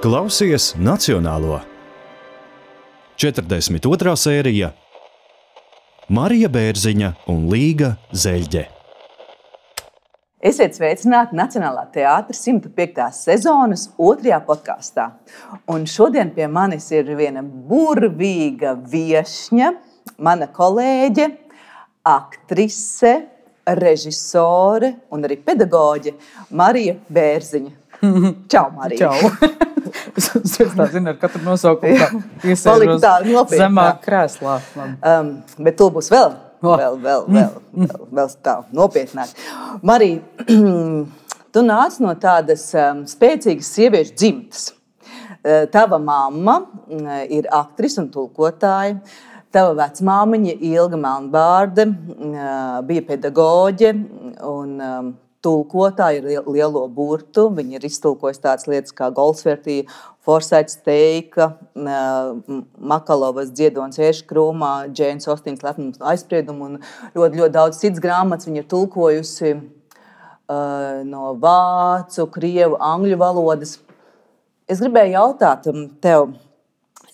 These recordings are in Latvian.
Klausies Nacionālo. 42. sērija Marija Bērziņa un Līga Zeļģe. Esiet sveicināti Nacionālā teātra 105. sezonas 2. podkastā. Un šodien pie manis ir viena burvīga viešņa, mana kolēģe, aktrise, režisore un arī pedagoģe Marija Bērziņa. Čau, Marija! Čau! Es tā zinu, ar katru nosaukumu iesēžos zemāk krēslā. Bet to būs vēl tā nopietnāk. Marija, tu nāc no tādas spēcīgas sieviešu dzimtas. Tava mamma ir aktrise un tulkotāja. Tava vecmāmiņa Ilga Melnbārde bija pedagoģe un tulkotāja ar lielo burtu. Viņa ir iztulkojusi tādas lietas kā Goldsvertī, Forsaits Teika, Makalovas Dziedonis Ērškrūmā, Džēnas Ostīnas Lepnums un aizspriedumu un ļoti daudz citas grāmatas. Viņa ir tulkojusi no vācu, krievu, angļu valodas. Es gribēju jautāt tev,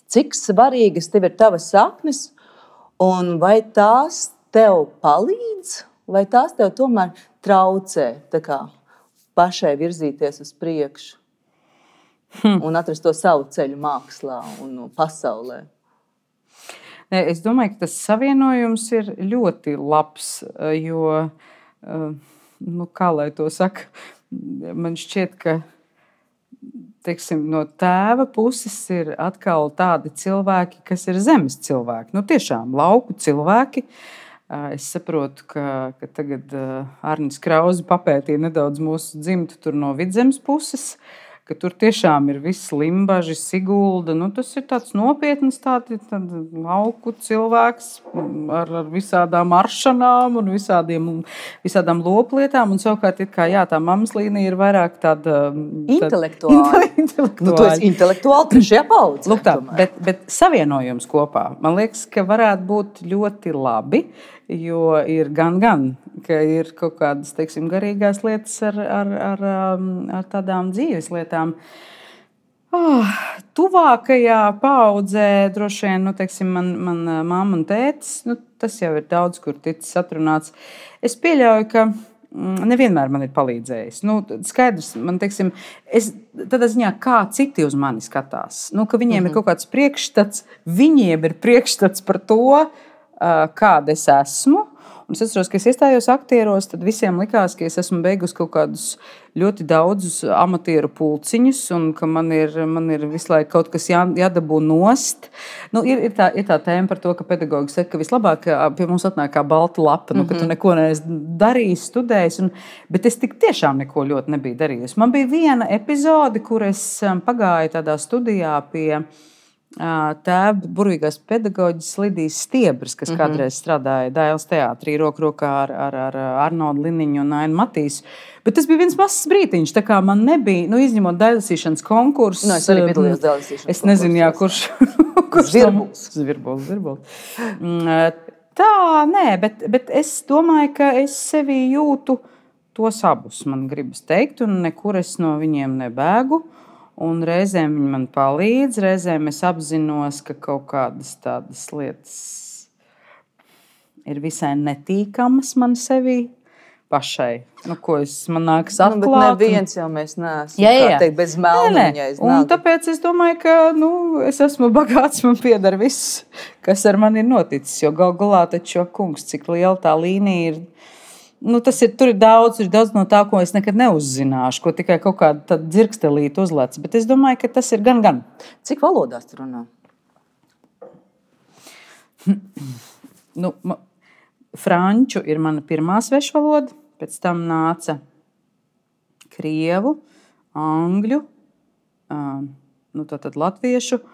cik svarīgas tev ir tavas saknes un vai tās tev palīdz, vai tās tev tomēr traucē tā kā pašai virzīties uz priekšu un atrast to savu ceļu mākslā un pasaulē? Es domāju, ka tas savienojums ir ļoti labs, jo, kā lai to saka, man šķiet, ka teiksim, no tēva puses ir atkal tādi cilvēki, kas ir zemes cilvēki. Tiešām lauku cilvēki. Es saprotu, ka tagad Arnis Krauze papētīja nedaudz mūsu dzimtu tur no Vidzemes puses, ka tur tiešām ir viss Limbaži, Sigulda. Tas ir tāds nopietns lauku cilvēks ar visādām aršanām un visādām loplietām. Un savukārt, tā mammas līnija ir vairāk tāda intelektuāla. Tu esi intelektuāli trešajā paudzē. Lūk tā, bet savienojums kopā, man liekas, ka varētu būt ļoti labi, jo ir gan, ka ir kaut kādas, teiksim, garīgās lietas ar tādām dzīves lietām. Tuvākajā paudzē droši vien, teiksim, man mamma un tētis, tas jau ir daudz, kur ticis atrunāts. Es pieļauju, ka nevienmēr man ir palīdzējis. Skaidrs, man, teiksim, tādā ziņā, kā citi uz mani skatās. Ka viņiem ir kaut kāds priekšstats, viņiem ir priekšstats par to, kāda es esmu. Un es atceros, ka es iestājos aktieros, tad visiem likās, ka es esmu beigusi kaut kādus ļoti daudzus amatieru pulciņus un ka man ir visu laiku kaut kas jādabū nost. Ir tā tēma par to, ka pedagogi saka, ka vislabāk pie mums atnāk kā balta lapa, ka tu neko neesi darījis, studējis. Bet es tik tiešām neko ļoti nebiju darījusi. Man bija viena epizode, kur es pagāju tādā studijā pie tēva burvīgās pedagoģis Lidijas Stiebras, kas kādreiz strādāja Dailes teātrī roku rokā ar Arnoldu Liniņu un Ainu Matīsu. Bet tas bija viens mazs brītiņš, tā kā man nebija, izņemot dailasīšanas konkursu. Es arī piedalījos dailasīšanas konkursu. Es nezinu, kurš Zvirbuls. Tā, nē, bet es domāju, ka es sevi jūtu tos abus, man gribas teikt, un nekur es no viņiem nebēgu. Un reizēm viņi man palīdz, reizēm es apzinos, ka kaut kādas tādas lietas ir visai netīkamas man sevi pašai. Ko man nākas atklāt. Bet neviens jau mēs neesam, kā teikt, bez melniņa. Un tāpēc es domāju, ka es esmu bagāts, man pieder viss, kas ar mani ir noticis. Jo gal galā taču, kungs, cik liela tā līnija ir. Tur ir daudz no tā, ko es nekad neuzzināšu, ko tikai kaut kāda dzirkstelīte uzlec. Bet es domāju, ka tas ir gan. Cik valodās tu runā? Franču ir mana pirmā svešvaloda, pēc tam nāca krievu, angļu, tad latviešu,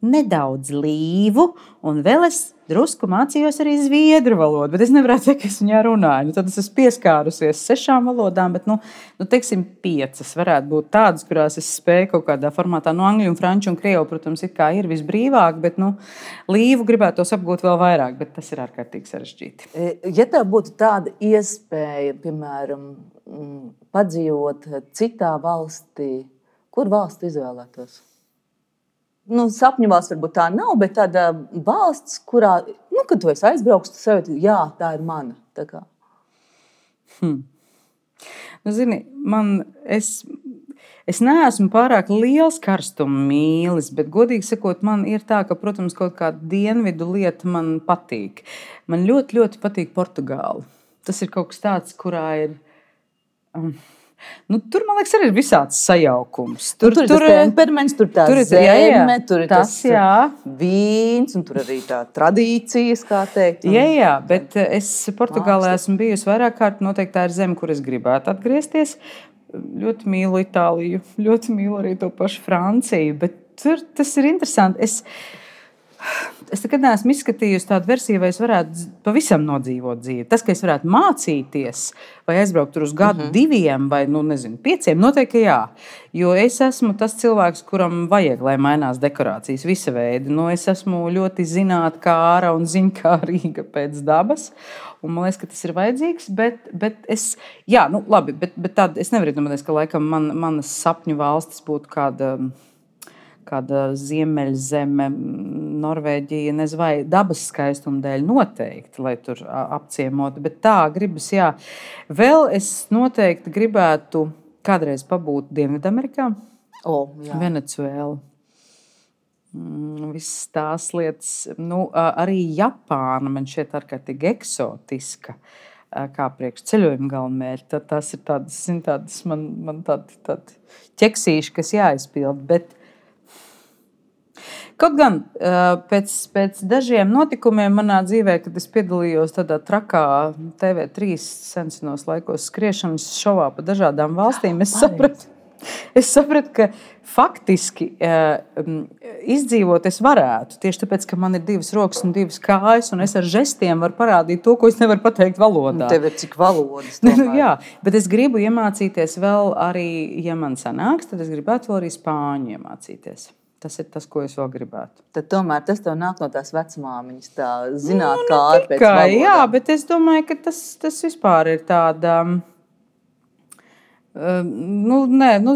nedaudz līvu, un vēl es drusku mācījos arī zviedru valodu, bet es nevarētu teikt, ka es viņā runāju. Tad es esmu pieskārusies 6 valodām, bet, teiksim, 5 varētu būt tādas, kurās es spēju kaut kādā formātā. Angļu un franču un krievu, protams, ir visbrīvāk, bet, līvu gribētos apgūt vēl vairāk, bet tas ir ārkārtīgi sarežģīti. Ja tev būtu tāda iespēja, piemēram, padzīvot citā valstī, Kur valsts izvēlētos? Nu, sapņu valsts varbūt tā nav, bet tāda valsts, kurā, nu, kad tu esi aizbrauks, tu sevi, jā, tā ir mana. Tā kā. Nu, zini, es neesmu pārāk liels karstuma mīlis, bet, godīgi sakot, man ir tā, ka, protams, kaut kāda dienvidu lieta man patīk. Man ļoti, ļoti patīk Portugāla. Tas ir kaut kas tāds, kurā ir... tur, man liekas, arī ir visāds sajaukums. Tur ir tas temperaments, tur tā zeme, tur ir tas vīns, un tur arī tā tradīcijas, kā teikt. Jā, bet es Portugālē esmu bijusi vairāk kārt. Noteikti tā ir zeme, kur es gribētu atgriezties. Ļoti mīlu Itāliju, ļoti mīlu arī to pašu Franciju, bet tur tas ir interesanti. Es nekad neesmu izskatījusi tādu versiju, vai es varētu pavisam nodzīvot dzīvi. Tas, ka es varētu mācīties, vai aizbraukt tur uz gadu, 2 vai 5, noteikti jā. Jo es esmu tas cilvēks, kuram vajag, lai mainās dekorācijas visa veida. Es esmu ļoti zinātnākāra un ziņkārīga pēc dabas. Un man liekas, ka tas ir vajadzīgs, bet es, labi, bet tāda, es nevaru iedomāties, ka laikam manas sapņu valstis būtu kāda ziemeļzeme, Norvēģija, nezinu, vai dabas skaistuma dēļ noteikti, lai tur apciemotu. Bet tā gribas, jā. Vēl es noteikti gribētu kādreiz pabūt Dienvidamerikā. Venecuēla. Visas tās lietas. Arī Japāna man šķiet ārkārtīgi eksotiska. Kā priekš ceļojuma galvenmērķi. Tas ir tādas man tādi ķeksīši, kas jāizpild. Bet kaut gan pēc dažiem notikumiem manā dzīvē, kad es piedalījos tādā trakā TV3 senos laikos skriešanas šovā pa dažādām valstīm, es sapratu, ka faktiski izdzīvot es varētu. Tieši tāpēc, ka man ir 2 rokas un 2 kājas, un es ar žestiem varu parādīt to, ko es nevaru pateikt valodā. Tev ir cik valodas? Jā, bet es gribu iemācīties vēl arī, ja man sanāks, tad es gribētu vēl arī spāņu iemācīties. Tas ir tas, ko es vēl gribētu. Tad tomēr tas tev nāk no tās vecmāmiņas, tā zināt, kā ar pēc valodām. Jā, bet es domāju, ka tas vispār ir tāda...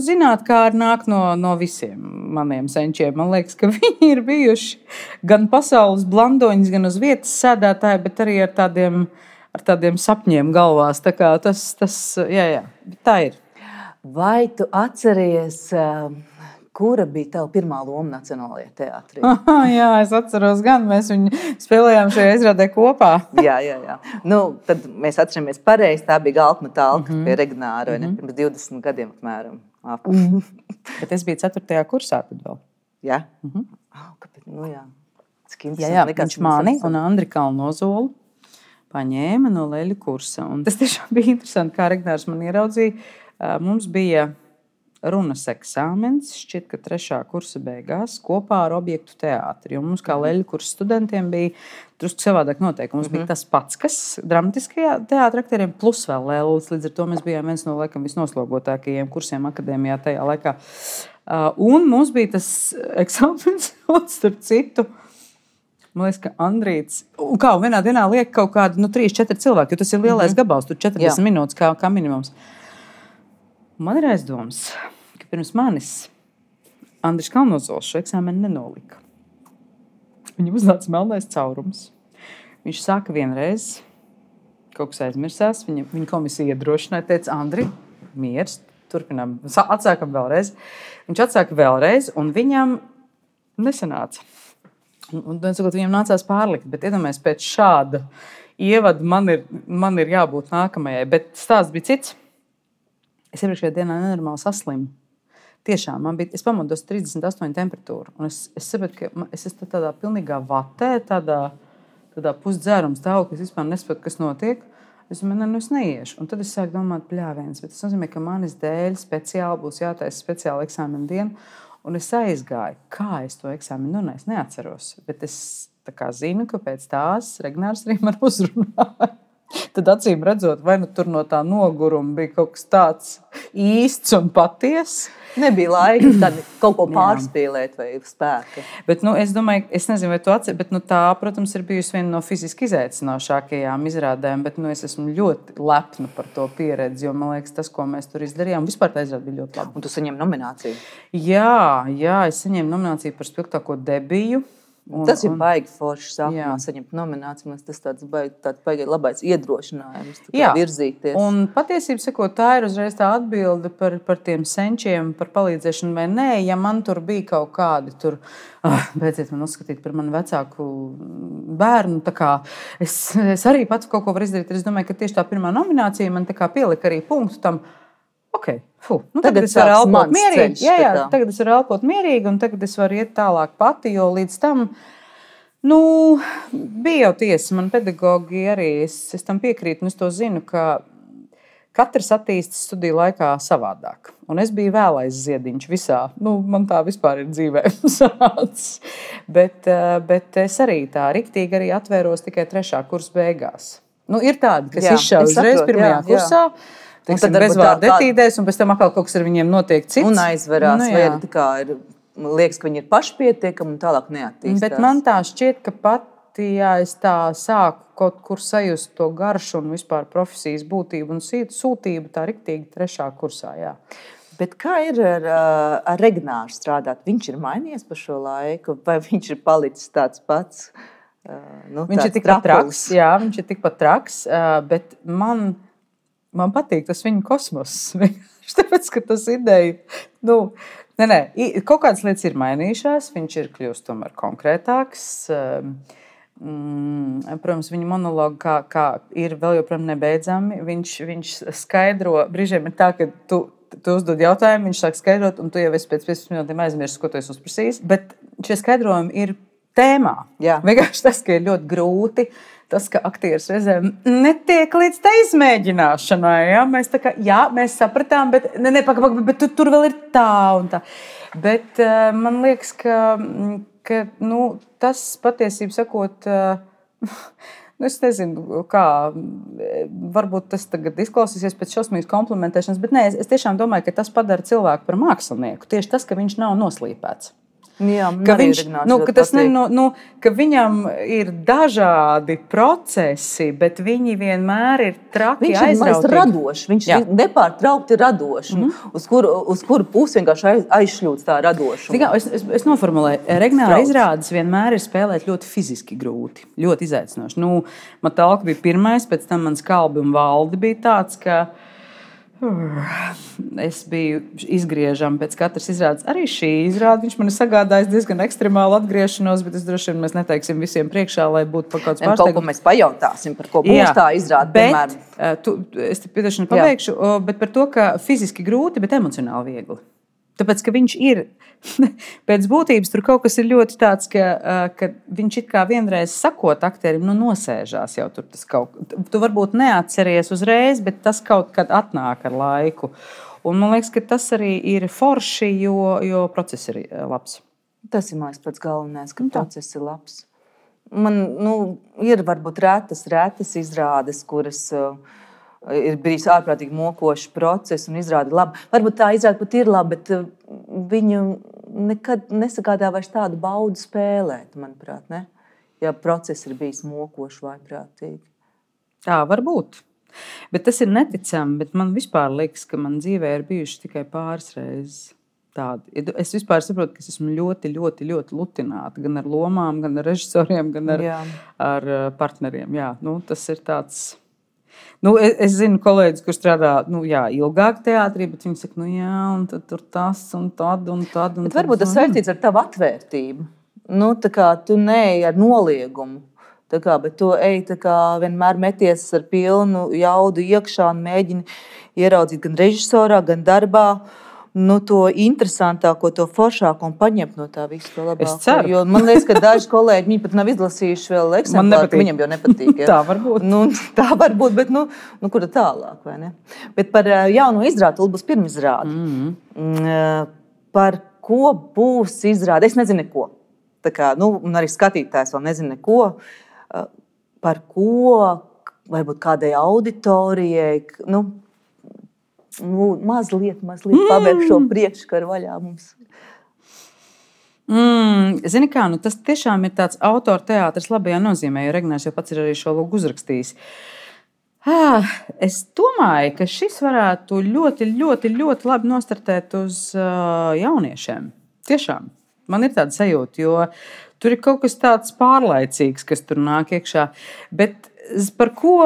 zināt, kā ar nāk no visiem maniem senčiem. Man liekas, ka viņi ir bijuši gan pasaules blandoņas, gan uz vietas sēdētāji, bet arī ar tādiem sapņiem galvās. Tā kā tas jā, tā ir. Vai tu atceries... Kura bija tava pirmā loma Nacionālajā teātrī? Jā, es atceros gan. Mēs viņu spēlējām šajā izrādē kopā. Jā. Tad mēs atceramies pareizi. Tā bija Galtma Talka pie Regnāra, pirms 20 gadiem apmēram. Bet es biju 4. kursā tad vēl. Jā? Kāpēc? Jā. Viņš mani un Andri Kalnozolu paņēma no leļu kursa. Un tas tiešām bija interesanti, kā Regnārs man ieraudzīja. Mums bija... runas eksāmens, šķiet, ka 3. kursa beigās kopā ar objektu teātri. Mums kā leļu kursa studentiem bija drusku savādāk noteikumi. Mums bija tas pats, kas dramatiskajā teātra aktieriem, plus vēl lēlis. Līdz ar to mēs bijām viens no laikam visnoslogotākajiem kursiem akadēmijā tajā laikā. Un mums bija tas eksāmens, starp citu, man liekas, ka Andrīts, un vienā dienā liek kaut kādi 3-4 cilvēki, jo tas ir lielais gabals, tur 40 minūtes kā minimums. Man ir aizdoms, ka pirms manis Andris Kalnozols šo eksāmenu nenolika. Viņam uznāca melnais caurums. Viņš sāka vienreiz, kaut kas aizmirsās, viņa komisija iedrošināja, teica, Andri, miers, turpinām, atsākam vēlreiz. Viņš atsāka vēlreiz, un viņam nesanāca. Un viņam nācās pārlikt, bet iedomājies, pēc šāda ievada man ir jābūt nākamajai, bet stāsts bija cits. Es iepriekšējā dienā nenormāli saslimu. Tiešām, es pamodos 38 temperatūru. Un es saprotu, ka es esmu tādā pilnīgā vatē, tādā pusdzēruma stāvoklī, ka es vispār nesaprotu, kas notiek. Es domāju, es neiešu. Un tad es sāku domāt pļāviens. Bet tas nozīmē, ka manis dēļ speciāli būs jātaisa speciāla eksāmena diena. Un es aizgāju. Kā es to eksāmenu es neatceros. Bet es zinu, ka pēc tās Regnārs arī man uzrunāja. tad acīm redzot, vai nu tur no tā noguruma bija kaut kas tāds īsts un patiess. Nebija laika tad kaut ko pārspīlēt vai spēka. Bet, es domāju, es nezinu, vai tu atceries, bet tā, protams, ir bijusi viena no fiziski izaicinošākajām izrādēm, bet es esmu ļoti lepna par to pieredzi, jo man liekas, tas, ko mēs tur izdarījām, vispār tā izrāde bija ļoti laba. Un tu saņem nomināciju? Jā, es saņēmu nomināciju par spilgtāko debiju. Tas ir baigi forši sākumā saņemt nomināciju. Tas tāds baigi labais iedrošinājums virzīties. Un patiesībā sakot, tā ir uzreiz tā atbilde par tiem senčiem, par palīdzēšanu vai nē. Ja man tur bija kaut kādi tur, beidziet man uzskatīt par manu vecāku bērnu, tā kā es arī pats kaut ko varu izdarīt. Es domāju, ka tieši tā pirmā nominācija man tā kā pielika arī punktu tam. Okay. Tagad es varu elpot mierīgi. Tagad es varu elpot mierīgi, un tagad es varu iet tālāk pati, jo līdz tam bija jau tiesa. Man pedagogi arī, es tam piekrītu, un es to zinu, ka katrs attīstas studiju laikā savādāk. Un es biju vēlais ziediņš visā. Man tā vispār ir dzīvē sanācis. Bet es arī tā riktīgi arī atvēros tikai 3. kursa beigās. Ir tādi, kas izšauj uzreiz 1. kursā. Tad bezvārdu etīdēs, un pēc tam atkal kaut kas ar viņiem notiek cits. Un aizverās, vai tā kā liekas, ka viņi ir pašpietiekami un tālāk neattīstās. Bet man tā šķiet, ka pati, ja es tā sāku kaut kur sajust to garšu un vispār profesijas būtību un sūtību, tā riktīgi 3. kursā, jā. Bet kā ir ar Regnāru strādāt? Viņš ir mainījies pa šo laiku, vai viņš ir palicis tāds pats? Viņš ir tikpat traks, jā, viņš ir tikpat traks, bet man patīk tas viņa kosmoss. Tāpēc, ka tas ideja, kaut kādas lietas ir mainījušās, viņš ir kļūst tomēr konkrētāks. Protams, viņa monologi kā ir vēl joprojām nebeidzami. Viņš skaidro, brīžiem ir tā, ka tu uzdod jautājumu, viņš sāk skaidrot, un tu jau esi pēc 15 minūtēm aizmirsis, ko tu esi uzprasījis. Bet šie skaidrojumi ir tēmā. Jā. Vienkārši tas, ka ir ļoti grūti. Tas, ka aktieris reizēm netiek līdz tā izmēģināšanai. Ja? Mēs sapratām, bet tur vēl ir tā un tā. Bet man liekas, ka tas patiesībā sakot, es nezinu, kā, varbūt tas tagad izklausīsies pēc šausmīgas komplimentēšanas, bet nē, es tiešām domāju, ka tas padara cilvēku par mākslinieku. Tieši tas, ka viņš nav noslīpēts. Jā, ka viņam ir dažādi procesi, bet viņi vienmēr ir traki aizrautīgi. Viņš ir radošs, viņš ir nepārtraukti radošs. Uz kuru pusi vienkārši aizšļūts tā radošuma? Es noformulēju, Regnāra izrādes vienmēr ir spēlēt ļoti fiziski grūti, ļoti izaicinoši. Man talka bija pirmais, pēc tam mans Kalbi un Valdi bija tāds, ka es biju izgriežama pēc katras izrādes. Arī šī izrāde viņš man ir sagādājis diezgan ekstremālu atgriešanos, bet es droši vien mēs neteiksim visiem priekšā, lai būtu kaut kāds pārsteigums. Kaut ko mēs pajautāsim, par ko būs tā izrāde. Es te piedošanu pabeigšu, bet par to, ka fiziski grūti, bet emocionāli viegli. Tāpēc, ka viņš ir, pēc būtības tur kaut kas ir ļoti tāds, ka viņš it kā vienreiz sakot aktierim, nosēžās jau tur tas kaut. Tu varbūt neatceries uzreiz, bet tas kaut kad atnāk ar laiku. Un man liekas, ka tas arī ir forši, jo process ir labs. Tas ir mans pats galvenais, ka process ir labs. Man ir varbūt retas izrādes, kuras ir bijis ārprātīgi mokošs process un izrāda labi. Varbūt tā izrāda pat ir laba, bet viņu nekad nesagādā vairs tādu baudu spēlēt, manuprāt, ne? Ja process ir bijis mokošs vai prātīgi. Tā var būt. Bet tas ir neticami, bet man vispār liekas, ka man dzīvē ir bijuši tikai pāris reizes tādi. Es vispār saprotu, ka es esmu ļoti, ļoti, ļoti lutināta gan ar lomām, gan ar režisoriem, gan ar partneriem. Jā, tas ir tāds. Es zinu kolēģis, kurš strādā ilgāk teātrī, bet viņi saka, un tad tur tas un tad. Bet varbūt tas saistīts ar tavu atvērtību. Tā kā tu neej ar noliegumu, bet tu ej vienmēr meties ar pilnu jaudu iekšā un mēģini ieraudzīt gan režisorā, gan darbā. To interesantāko, to foršāko un paņemt no tā visu to labāko. Es ceru. Jo man liekas, ka daži kolēģi viņi pat nav izlasījuši vēl eksemplāru, ka viņam jau nepatīk. Ja? Tā var būt. Tā var būt, bet kur tālāk, vai ne? Bet par jauno izrādi, būs pirmizrāde. Par ko būs izrāde? Es nezinu neko. Un arī skatītājs vēl nezinu neko. Par ko, varbūt kādai auditorijai, mazliet pabeigt šo priekškaru vaļā mums. Zini kā, tas tiešām ir tāds autora teātris labajā nozīmē, jo Regnērs jau pats ir arī šo lūgu uzrakstījis. Es domāju, ka šis varētu ļoti, ļoti, ļoti labi nostartēt uz jauniešiem. Tiešām, man ir tāda sajūta, jo tur ir kaut kas tāds pārlaicīgs, kas tur nāk iekšā. Bet par ko,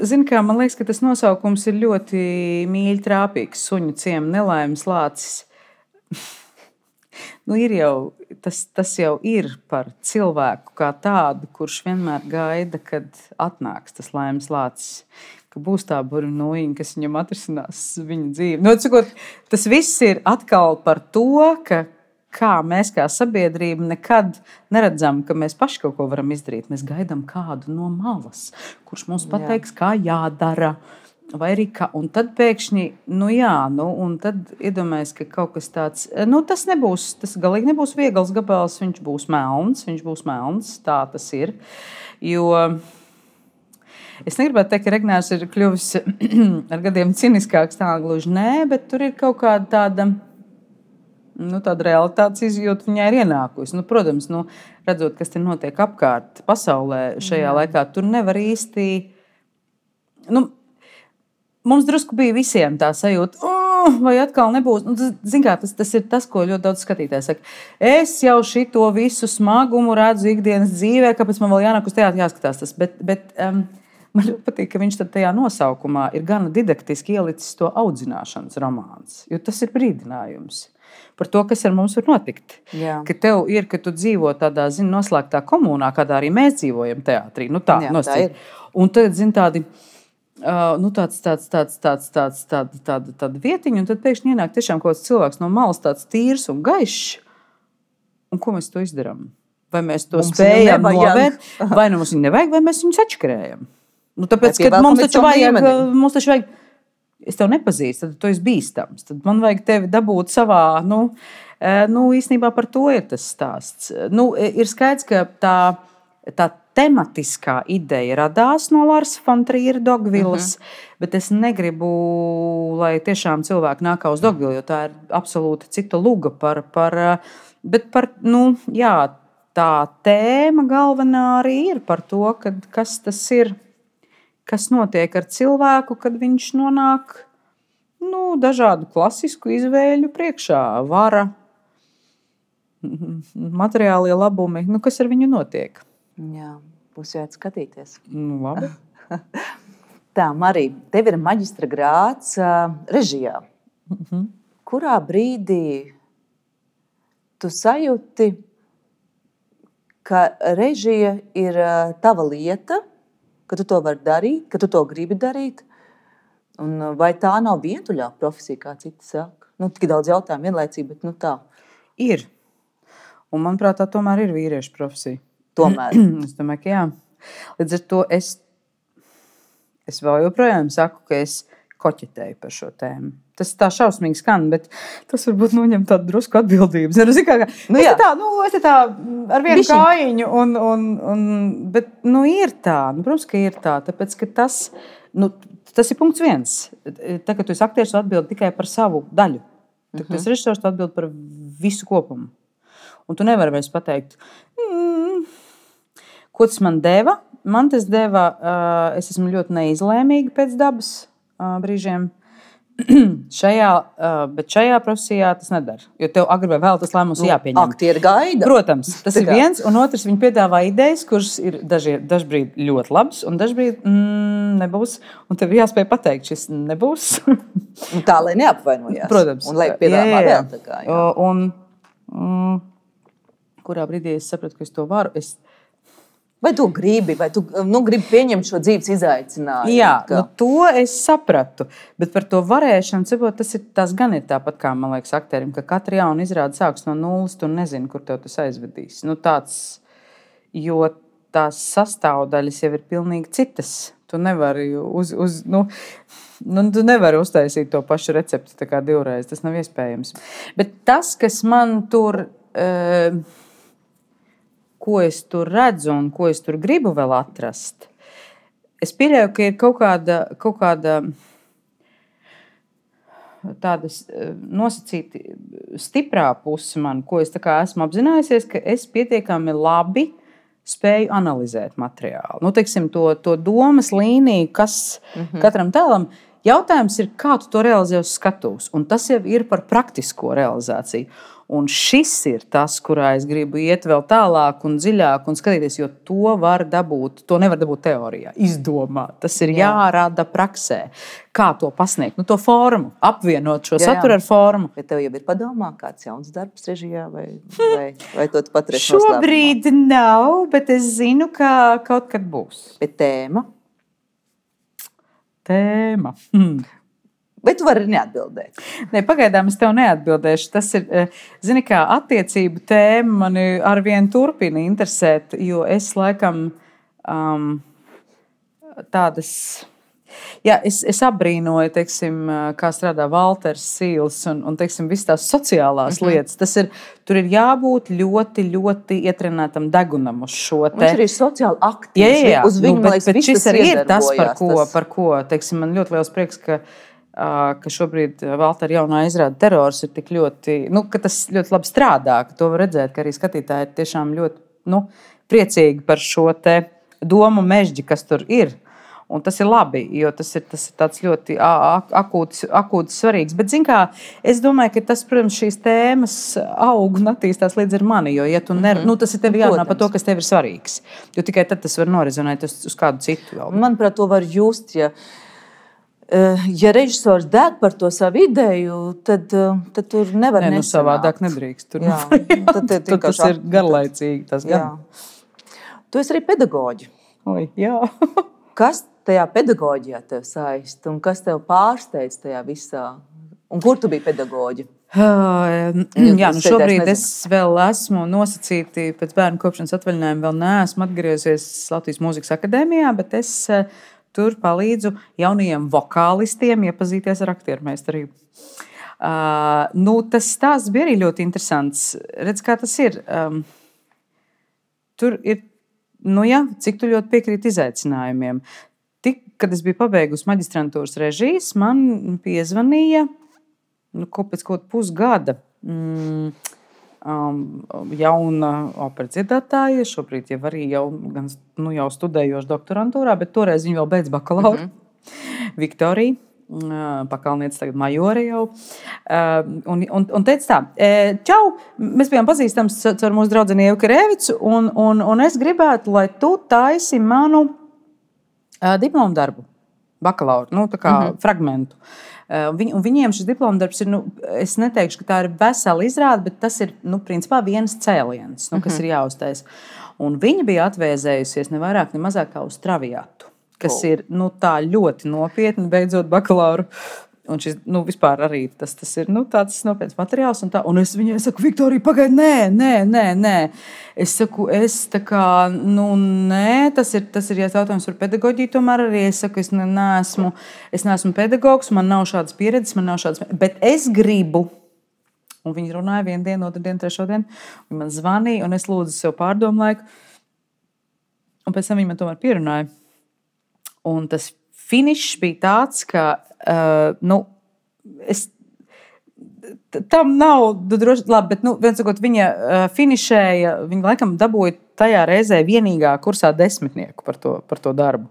zini kā, man liekas, ka tas nosaukums ir ļoti mīļi trāpīgs. Suņu ciema nelaimes lācis. Ir jau, tas jau ir par cilvēku kā tādu, kurš vienmēr gaida, kad atnāks tas laimes lācis, ka būs tā burvinojiņa, kas viņam atrisinās viņa dzīvi. Tas viss ir atkal par to, ka kā mēs kā sabiedrība nekad neredzam, ka mēs paši kaut ko varam izdarīt. Mēs gaidām kādu no malas, kurš mums pateiks, kā jādara. Vai arī kā, un tad pēkšņi, un tad iedomājas, ka kaut kas tāds, tas galīgi nebūs viegls gabals, viņš būs melns, tā tas ir. Jo es negribētu teikt, ka Regnērs ir kļuvis ar gadiem ciniskāks, tā gluži nē, bet tur ir kaut kāda tāda realitātes izjūta viņai ir ienākusi. Protams, redzot, kas te notiek apkārt pasaulē šajā laikā, tur nevar īsti... Mums drusku bija visiem tā sajūta, vai atkal nebūs. Tas ir tas, ko ļoti daudz skatītāji saka. Es jau šito visu smagumu redzu ikdienas dzīvē, kāpēc man vēl jānāk uz teātri jāskatās tas. Bet man ļoti patīk, ka viņš tajā nosaukumā ir gana didaktiski ielicis to audzināšanas romāns. Jo tas ir brīdinājums par to, kas ar mums var notikt. Jā. Ka tev ir, ka tu dzīvo tādā, noslēgtā komunā, kādā arī mēs dzīvojam teātrī. Tā ir. Un tad, tādi... tāda vietiņa, un tad pēkšņi ienāk tiešām kaut kāds cilvēks no malas, tāds tīrs un gaišs. Un ko mēs to izdarām? Vai mēs to spējam novērt, vai mums viņu nevajag, vai mēs viņu sačakarējam? Tāpēc, ka mums taču vajag, es tev nepazīstu, tad tu esi bīstams. Tad man vajag tevi dabūt savā, īstenībā par to ir tas stāsts. Ir skaidrs, ka tā tematiskā ideja radās no Lars von Triera Dogvilles, bet es negribu, lai tiešām cilvēki nāk uz Dogvilli, jo tā ir absolūti cita luga tā tēma galvenā arī ir par to, kas tas ir, kas notiek ar cilvēku, kad viņš nonāk dažādu klasisku izvēļu priekšā, vara, materiālie labumi, kas ar viņu notiek. Jā, būs jāiet skatīties. Labi. Tā, Marija, tev ir maģistra grāds režijā. Kurā brīdī tu sajūti, ka režija ir tava lieta, ka tu to vari darīt, ka tu to gribi darīt? Un vai tā nav vientuļā profesija, kā citi saka? Tik daudz jautājumu vienlaicīgi, bet tā. Ir. Un manuprāt, tā tomēr ir vīriešu profesija. Tomēr. Es domāju, ka jā. Līdz ar to es vēl joprojām saku, ka es koķetēju par šo tēmu. Tas tā šausmīgi skan, bet tas varbūt noņem tādu drusku atbildības. Es tā ar vienu kājiņu, bet ir tā. Protams, ka ir tā, tāpēc, ka tas ir punkts viens. Tā, ka tu esi aktieris, tu atbildi tikai par savu daļu. Tad tu esi režisors, tu atbildi par visu kopumu. Un tu nevari vairs pateikt, ko tas man deva. Man tas deva, es esmu ļoti neizlēmīga pēc dabas brīžiem. Bet šajā profesijā tas nedara. Jo tev agri vai vēl tas lēmums jāpieņem. Aktieri gaida. Protams, tas ir viens. Un otrs, viņi piedāvā idejas, kuras ir dažbrīd ļoti labas, un dažbrīd nebūs. Un tev ir jāspēj pateikt, šis nebūs. Tā, lai neapvainojās. Protams. Un lai piedāvā vēl tā kā. Un kurā brīdī es sapratu, ka es to varu. Vai tu gribi, gribi pieņemt šo dzīves izaicinājumu? Jā, to es sapratu. Bet par to varēšanu, tas gan ir tāpat kā, man liekas, aktierim, ka katra jauna izrāde sāks no nulles, tu nezini, kur tev tas aizvedīs. Jo tās sastāvdaļas jau ir pilnīgi citas. Tu nevari tu nevari uztaisīt to pašu recepti tā kā divreiz. Tas nav iespējams. Bet tas, kas man tur... ko es tur redzu un ko es tur gribu vēl atrast, Es pieļauju, ka ir kaut kāda tāda nosacīta stiprā puse man, ko es tā kā esmu apzinājusies, ka es pietiekami labi spēju analizēt materiālu. Nu, teiksim, to domas līniju, kas katram tēlam. Jautājums ir, kā tu to realizē uz skatuves, un tas jau ir par praktisko realizāciju. Un šis ir tas, kurā es gribu iet vēl tālāk un dziļāk un skatīties, jo to nevar dabūt teorijā, izdomāt. Tas ir jārada praksē. Kā to pasniegt? Nu, to formu, apvienot šo saturu ar formu. Vai tev jau ir padomā kāds jauns darbs režijā, vai to tu paturēsi noslēpumā? Šobrīd nav, bet es zinu, ka kaut kad būs. Bet tēma? Tēma. Bet tu vari neatbildēt. Ne, pagaidām es tev neatbildēšu. Tas ir, zini, kā attiecību tēma mani arvien turpina interesēt, jo es laikam tādas. Jā, es abrīnoju, teiksim, kā strādā Valters Sīls un teiksim, visas tās sociālās lietas. Tur ir jābūt ļoti, ļoti ietrenētam degunam uz šo te. Viņš arī sociāli aktīvs. Jā, uz viņu, man liekas, bet šis arī ir tas, iedarbojās, par ko teiksim, man ļoti liels prieks, ka šobrīd Valtera jaunā izrāde Terors ir tik ļoti, ka tas ļoti labi strādā, ka to var redzēt, ka arī skatītāji ir tiešām ļoti priecīgi par šo te domu mežģi, kas tur ir. Un tas ir labi, jo tas ir tāds ļoti akūts svarīgs. Bet, zin kā, es domāju, ka tas, protams, šīs tēmas aug un attīstās līdz ar mani. Jo, ja tu tas ir tev jārunā par to, kas tev ir svarīgs. Jo tikai tad tas var norizonēt uz kādu citu. Manuprāt, to var just, ja režisors deg par to savu ideju, tad tur nevar nesanākt. Savādāk nedrīkst. Tad tas ir garlaicīgi. Tu esi arī pedagoģi. Oi, jā. Kas tajā pedagoģijā tev saist un kas tev pārsteidz tajā visā? Un kur tu biji pedagoģi? Šobrīd es vēl esmu nosacīti pēc bērnu kopšanas atvaļinājuma, vēl neesmu atgriezies Latvijas Mūzikas akadēmijā, bet es tur palīdzu jaunajiem vokālistiem iepazīties ar aktiermeistarību. Tas stāsts bija arī ļoti interesants. Redz, kā tas ir. Tur ir cik tu ļoti piekrīti izaicinājumiem. Kad es biju pabeigusi maģistrantūras režijas, man piezvanīja pēc kaut pusgada jauna operas dziedātāja, šobrīd jau arī jau studējoša doktorantūrā, bet toreiz viņa vēl beidz bakalauru. Viktorija. Pakalniece, tagad majore jau. Un teica tā, čau, mēs bijām pazīstams ar mūsu draudzeni Ievu Karevicu, un es gribētu, lai tu taisi manu diplomu darbu, bakalauru, tā kā fragmentu. Viņiem šis diplomu darbs ir, es neteikšu, ka tā ir vesela izrāde, bet tas ir, principā viens cēliens, kas ir jāuztais. Un viņa bija atvēzējusies ne vairāk, ne mazāk kā uz Traviatu. Kas ir tā ļoti nopietni, beidzot bakalauru. Un šis vispār arī tas ir tāds nopietns materiāls. Un es viņai saku, Viktorija, pagaidi, nē. Es saku, nē, tas ir jautājums par pedagoģiju. Tomēr arī es saku, es neesmu pedagogs, man nav šādas pieredzes, bet es gribu. Un viņi runāja vienu dienu, otru dienu, trešo dienu. Viņi man zvanīja, un es lūdzu sev pārdomu laiku. Un pēc tam viņi man tomēr pierunāja. Un tas finišs bija tāds, ka tam nav droši labi, bet viens sakot, viņa finišēja, viņa laikam dabūja tajā reizē vienīgā kursā 10 par to darbu.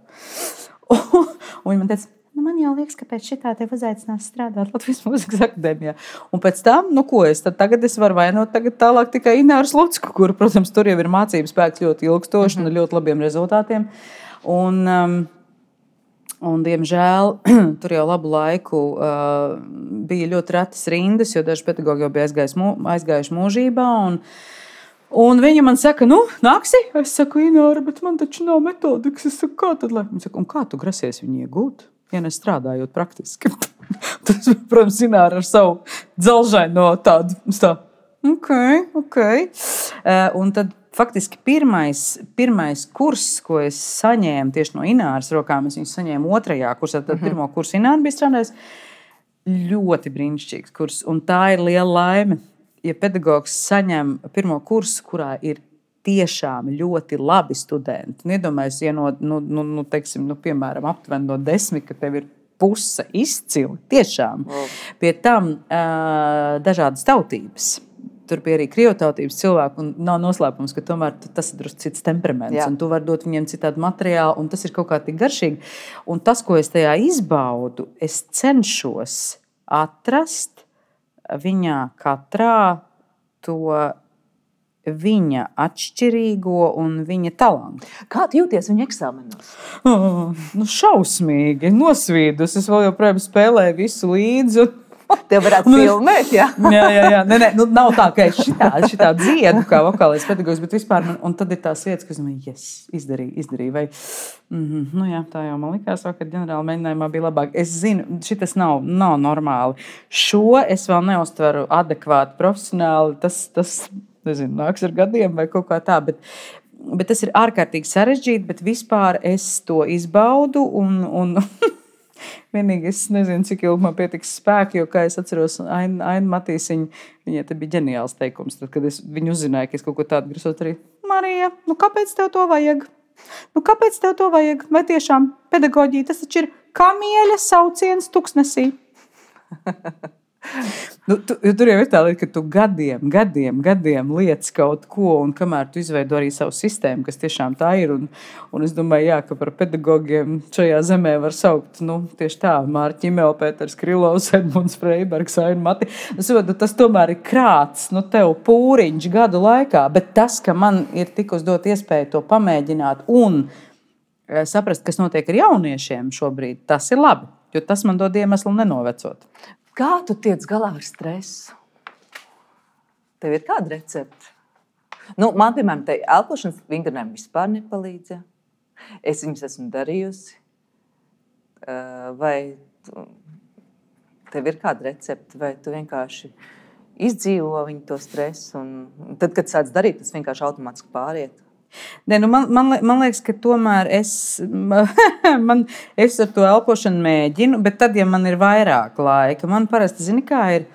Un viņa man teica, man jau liekas, ka pēc šitā tev uzaicinās strādāt Latvijas Mūzikas akadēmijā. Un pēc tam, tagad es varu vainot tālāk tikai Ināru Slucku, kuru, protams, tur jau ir mācības spēks ļoti ilgstoši un ļoti labiem rezultātiem. Un, diemžēl, tur jau labu laiku bija ļoti retas rindas, jo daži pedagogi jau bija aizgājuši mūžībā. Un viņa man saka, nāksi? Es saku, Ināra, bet man taču nav metodikas. Es saku, kā tad? Viņa saka, un kā tu grasies viņu iegūt? Ja nestrādājot praktiski. Tas, protams, Ināra ar savu dzelžaino tādu. Ok. Un tad faktiski pirmais kurs, ko es saņēmu tieši no Ināras rokām, es viņu saņēmu 2. kursā, tad pirmo kursu Ināra bija strādājis. Ļoti brīnišķīgs kurs, un tā ir liela laime, ja pedagogs saņem pirmo kursu, kurā ir tiešām ļoti labi studenti. Iedomājos, ja piemēram, aptuveni no 10, ka tev ir puse izcili, tiešām. Pie tam dažādas tautības. Tur bija arī krievotautības cilvēki, un nav noslēpums, ka tomēr tas ir drusku cits temperaments, un tu vari dot viņiem citādu materiālu, un tas ir kaut kā tik garšīgi. Un tas, ko es tajā izbaudu, es cenšos atrast viņā katrā to viņa atšķirīgo un viņa talantu. Kā tu jūties viņa eksāmenos? Šausmīgi, nosvīdus. Es vēl joprojām spēlēju visu līdzi. Tev varētu filmēt, jā? Jā. Nē, nav tā, ka es šitā dziedu kā vokālais pedagogs, bet vispār un tad ir tās vietas, kas man, izdarīju. Vai, tā jau man likās, ka ģenerāla mēģinājumā bija labāk. Es zinu, šitas nav normāli. Šo es vēl neuztveru adekvāti profesionāli. Tas nezinu, nāks ar gadiem vai kaut kā tā, bet tas ir ārkārtīgi sarežģīti, bet vispār es to izbaudu un vienīgi es nezinu, cik ilgi man pietiks spēki, jo, kā es atceros, Aina Matīsiņa, viņai te bija ģeniāls teikums, tad, kad es viņu uzzināju, ka es kaut ko tādu grasot arī. Marija, kāpēc tev to vajag? Kāpēc tev to vajag? Vai tiešām pedagoģija, tas taču ir kamieļa sauciens tuksnesī? Tur jau ir tā lieta, ka tu gadiem liec kaut ko, un kamēr tu izveido arī savu sistēmu, kas tiešām tā ir, un es domāju, ka par pedagogiem šajā zemē var saukt, tieši tā, Mārķa Ķimela, Pēters Krilovs, Edmunds Freibergs, Aina Mati. Tas tomēr ir krāts, tev pūriņš gadu laikā, bet tas, ka man ir tikus dot iespēju to pamēģināt un saprast, kas notiek ar jauniešiem šobrīd, tas ir labi, jo tas man dod iemeslu nenovecot. Kā tu tiec galā ar stresu? Tev ir kāda recepte? Man, piemēram, te elpošanas vingrinājumi vispār nepalīdz. Es viņus esmu darījusi. Vai tev ir kāda recepte, vai tu vienkārši izdzīvo viņu to stresu, un tad, kad sāc darīt, tas vienkārši automātiski pāriet? Ne, man liekas, ka tomēr es ar to elpošanu mēģinu, bet tad, ja man ir vairāk laika, man parasti, zini, kā ir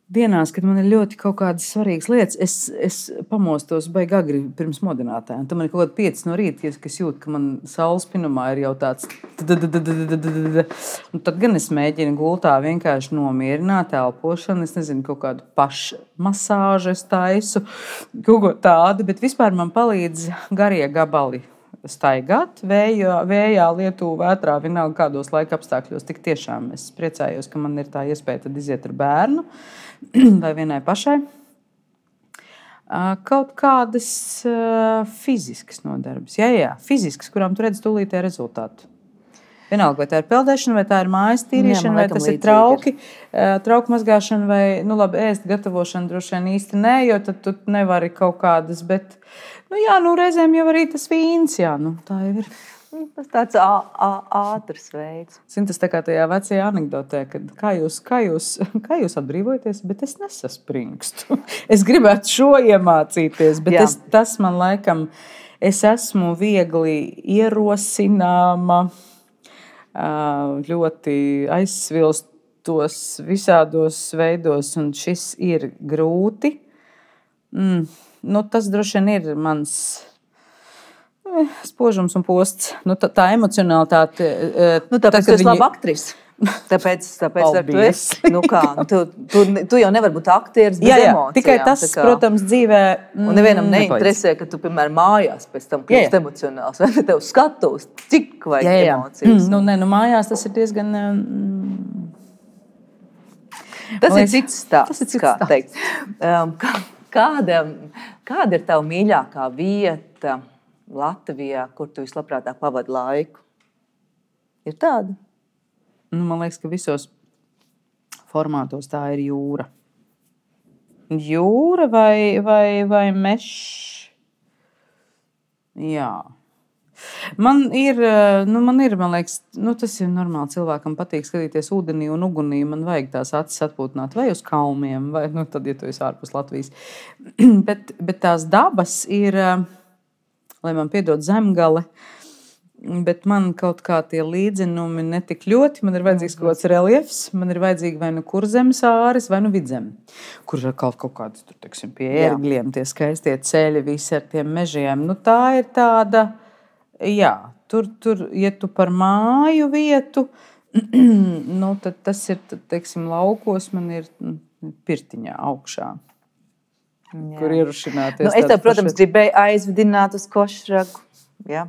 dienās, kad man ir ļoti kaut kādas svarīgas lietas, es pamostos baigi agri pirms modinātājiem. Tad man ir kaut kāda 5 no rīta, kas jūt, ka man saules spinumā ir jau tāds. Un tad gan es mēģinu gultā vienkārši nomierināt elpošanu. Es nezinu, kaut kādu pašmasāžu es taisu, kaut ko tādu, bet vispār man palīdz garie gabali staigāt vējā, lietu, vētrā, vienalga kādos laika apstākļos. Tik tiešām es priecājos, ka man ir tā iespēja tad iziet ar bērnu vai vienai pašai. Kaut kādas fiziskas nodarbes. Jā, fiziskas, kurām tu redzi tūlītē rezultātu. Vienalga, vai tā ir peldēšana, vai tā ir mājas tīrīšana, vai tas ir trauku mazgāšana, vai ēst gatavošana droši vien īsti nē, jo tad tu nevari kaut kādas, bet reizēm jau arī tas vīns, tā jau ir. Tas tāds ātrs veids. Zini, tas tā kā tajā vecajā anekdotē, kad kā jūs atbrīvojaties, bet es nesaspringstu. Es gribētu šo iemācīties, bet tas man laikam, es esmu viegli ierosināma, ļoti aizsvilstos visādos veidos, un šis ir grūti. Tas droši vien ir mans spožums un posts. Tā emocionalitāte. Tāpēc tu esi laba aktrise. Tāpēc tu esi. Tu jau nevari būt aktieris bez emocijām. Tikai tas, protams, dzīvē. Un nevienam neinteresē, ka tu, piemēram, mājās pēc tam kļūst emocionāls. Vai tev skatos, cik vajag emocijas? Mājās tas ir diezgan. Tas ir cits stāsts, kā teikt. Kāda ir tava mīļākā vieta Latvijā, kur tu vislabprātāk pavadi laiku? Ir tāda? Man liekas, ka visos formātos tā ir jūra. Jūra vai mežs? Jā. Man ir, man liekas, tas ir normāli. Cilvēkam patīk skatīties ūdenī un ugunī. Man vajag tās acis atpūtināt vai uz kalmiem, vai tad, ja tu esi ārpus Latvijas. bet tās dabas ir, lai man piedod zemgale, bet man kaut kā tie līdzenumi netik ļoti. Man ir vajadzīgs kaut kāds reliefs, man ir vajadzīgi vai nu kurzemes āris, vai nu vidzem, kur ir kaut kādas, tur, teiksim, pie ērgļiem, tie skaistie ceļi, visi ar tiem mežiem. Nu, tā ir tāda, jā, tur, ja tu par māju vietu, nu, tad tas ir, teiksim, laukos man ir pirtiņā augšā. Jā. Kur ierušināties. Nu, es tev, protams, gribēju aizvedināt uz Košragu. Jā.